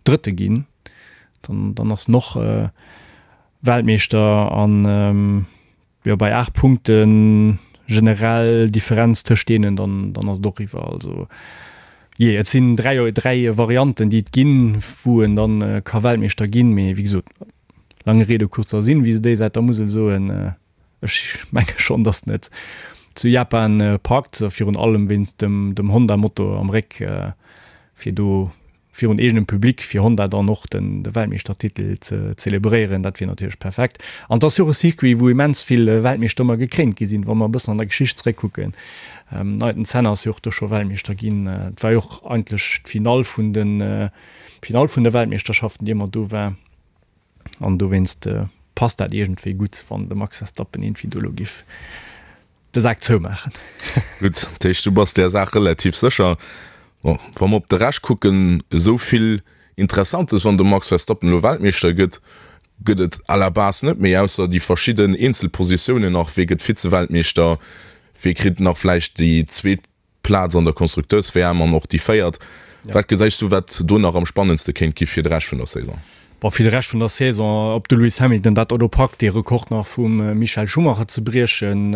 Drëtte ginn. Dann, dann ass en och Weltmeeschter an jo bei 8 Punkte generell Differenz tëscht deenen, dann, dann ass et och eriwwer. Also jee, et sinn 3, 3 Varianten déi et ginn, wou en dann ka Weltmeeschter ginn, mee wéi gesot, lange Rede kurzer Sinn, wéi se déi Säit der Musel soen, ech menge schonn, datt en et zu Japan packt, virun allem wéinst dem, dem Honda-Motor am Réck, fir do virun eegenem Public fir Honda dann och den de Weltmeeschtertitel ze zelebréieren, dat wier natierlech perfekt. An et ass jo och e Circuit, wou immens vill Weltmeeschter ëmmer gekréint gi sinn, wa mer e bëssen an der Geschicht zeréckkucken. Den Ayrton Senna ass jo och do scho Weltmeeschter ginn. Et war jo och eigentlech d'Finall vun den d'Finall vun de Weltmeeschterschaften, déi ëmmer do war. An dowéinst passt dat iergendwéi gutt, wann de Max Verstappen iergendwéi do elo giff de Sak zoumaachen. Gutt, dat heescht du bass där Saach relativ sécher. Bon, wa mer op de Rescht kucken, esou vill Interessantes, wann de Max Verstappen elo Weltmeeschter gëtt, gëtt et à la base net méi, ausser déi verschidden Eenzelpositiounen nach, wee gëtt Vize-Weltmeeschter, wee kritt nach vläicht déi zweet Plaz an der Konstrukteurs-WM an och déi véiert. Wat gesäis du, wat do nach am spannendste kéint gi fir de Rescht vun der Saison? Bon, fir de Rescht vun der Saison, ob de Lewis Hamilton dat elo packt, dee Rekord nach vum Michael Schumacher ze briechen,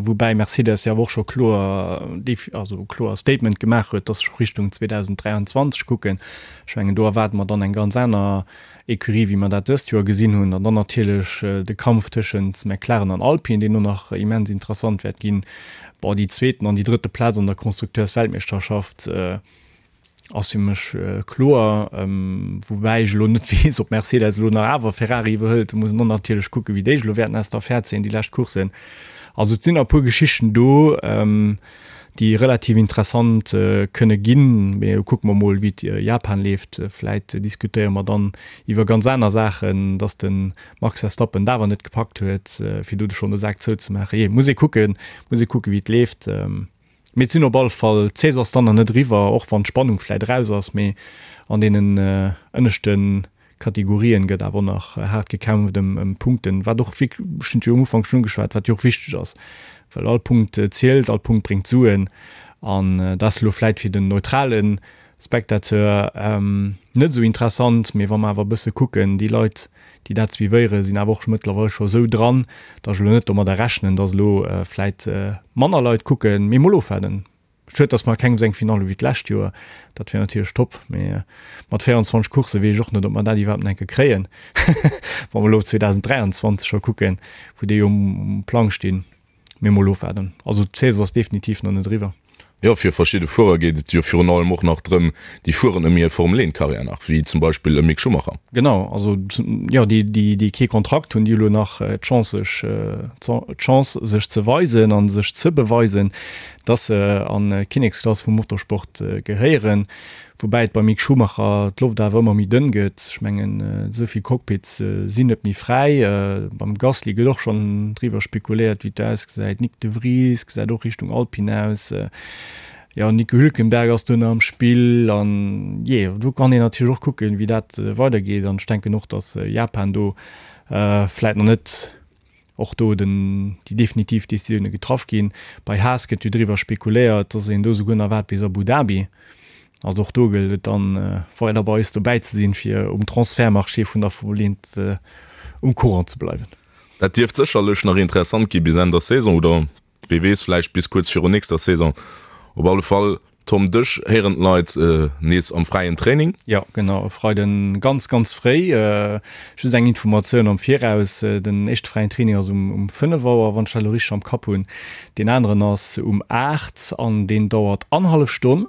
woubäi Mercedes jo awer och scho kloer, also kloer Statement gemaach huet, dass se scho Richtung 2023 kucken. Ech mengen, do erwaarde mer dann eng ganz aner Ecurie, wéi mer dat dëst Joer gesinn hunn. An dann natierlech de Kampf tëschent McLaren an Alpine, deen och nach immens interessant wäert ginn. Bon, déi zweeten an déi drëtte Plaz an der Constructeursweltmeeschterschaft ass fir mech kloer, woubäi ech elo net weess, ob Mercedes elo nach awer Ferrari iwwerhëlt. Do muss een och natierlech kucken, wéi déi elo wäerten aus der Affär zéien, déi lescht Courssen. Also et sinn nach e puer Geschichten do. déi relativ interessant kënne ginn. Mee kucke mer mol, wéi et Japan leeft. Vläit diskutéiere mer dann iwwer ganz aner Saachen, dass de Max Verstappen et awer net gepackt huet, fir do schonn de Sak zouzemaachen. Jee, muss ee kucken, muss ee kucken, wéi et leeft. Mee et sinn op alle Fall, d'Saison ass dann nach net eriwwer, och wann d'Spannung vläit eraus ass. Mee an deenen ënneschte Kategorien gëtt awer och nach haart gekämpft ëm Punkten, wat och, ech hunn et jo um Ufank schonn ugeschwat, wat jo och wichteg ass, well all Punkt zielt, all Punkt bréngt Suen an dat ass elo vläit fir den neutrale Spectateur net esou interessant, mee wa mer awer e bësse kucken, déi Leit, déi dat suivéieren, sinn awer och mëttlerweil scho esou dran, datt ech elo net domadder rechnen, datt elo vläit manner Leit kucken, mee mol ofwaarden. Schued dass mer keng esou eng Finale hu wéi d'lescht Joer, dat wier natierlech top, mee mat 24 Coursse weess ech och net ob mer dat iwwerhaapt nach eng Kéier kréien, wa mer elo op 2023 scho kucken, wou déi jo um Plang stinn. Mee mol ofwaarden, also d'Saison ass definitiv nach net eriwwer. Jo, fir verschidde Fuerer geet et jo virun allem och nach drëm, déi fueren ëm hir Formel 1 Karriär nach, wéi zum Beispill e Mick Schumacher. Genau, also jo, déi déi kee Kontrakt hunn, déi hu lo nach d'Chance sech d'Chance sech ze weisen a sech ze beweisen. dass se an d'Kinneksklass vum Motorsport gehéieren, woubäi et beim Mick Schumacher d'Loft awer ëmmer méi dënn gëtt. Ech mengen, esou vill Cockpits sinn net méi fräi. Beim Gasly gëtt och schonn driwwer spekuléiert, wéi et do ausgesäit. Nyck de Vries gesäit och Richtung Alpine aus. Jo, Nico Hülkenberg ass do nach am Spill an jee, do kann een natierlech och kucken, wéi dat weidergeet. An ech denken och, dass Japan do vläit nach net och do den, déi definitiv Decisioune getraff ginn. Bei Haas gëtt jo driwwer spekuléiert, dass een do souguer nach waart bis Abu Dhabi. Also och do gëllt et dann, weider bei eis dobäi ze sinn, fir um Transfertmarché vun der Formel 1 um Courant ze bleiwen. Dat dierft sécherlech nach interessant gi bis Enn der Saison oder wee weess, vläicht bis kuerz virun nächster Saison. Op alle Fall. Tom, dech héieren d'Leit nees am fräien Training. Jo, genau, e Freiden ganz, ganz fréi. Just eng Informatioun am Viraus, Den éischte fräien Training ass um 5 Auer, wann ech dat elo richteg am Kapp hunn. Deen aneren ass um 8 an deen dauert annerhallef Stonn.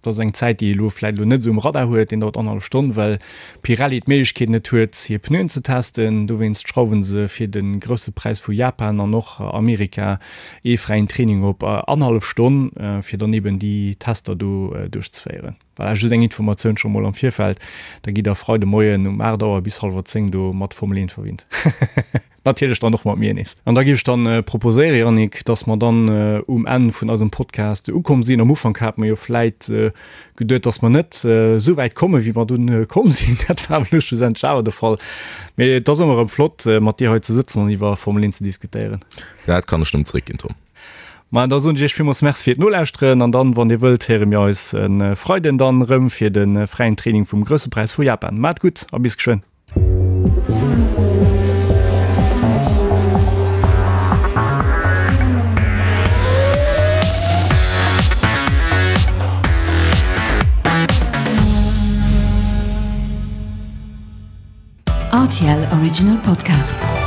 Dat ass eng Zäit, déi ee elo vläicht elo net esou um Radar huet. Deen dauert annerhallef Stonn, well Pirelli d'Méiglechkeet net huet, hir Pneuen ze testen. Dowéinst schrauwe se fir de Grousse Präis vu Japan an och Amerika ee fräien Training op annerhallef Stonn, fir dann eben déi Tester do duerchzeféieren. Voilà, just eng Informatioun scho mol am Virfeld. Da gitt der Freide Moien um 8 Auer bis hallwer 10 do mat Formel 1 verwinnt. Natierlech dann och mat mir nees. An da géif ech dann proposéieren, Yannick, dass mer dann um Enn vun eisem Podcast ukomm sinn. Am Ufank hate mer jo vläit geduet, dass mer net esou wäit kommen, wéi mer dunn komm sinn. Dat war awer elo schlussendlech awer de Fall. Mee et ass ëmmer erëm flott, mat dir hei ze sëtzen an iwwer Formel 1 ze diskutéieren. Dat kann ech nëmmen zeréckginn, Tom. Ma da soen ech iech villmools Merci fir d'Nolauschteren an dann, wann dir wëllt, héiere mir eis e Freiden dann erëm fir de fräien Training vum Grousse Präis vu Japan. Maacht gutt a bis geschwënn. RTL Original Podcast.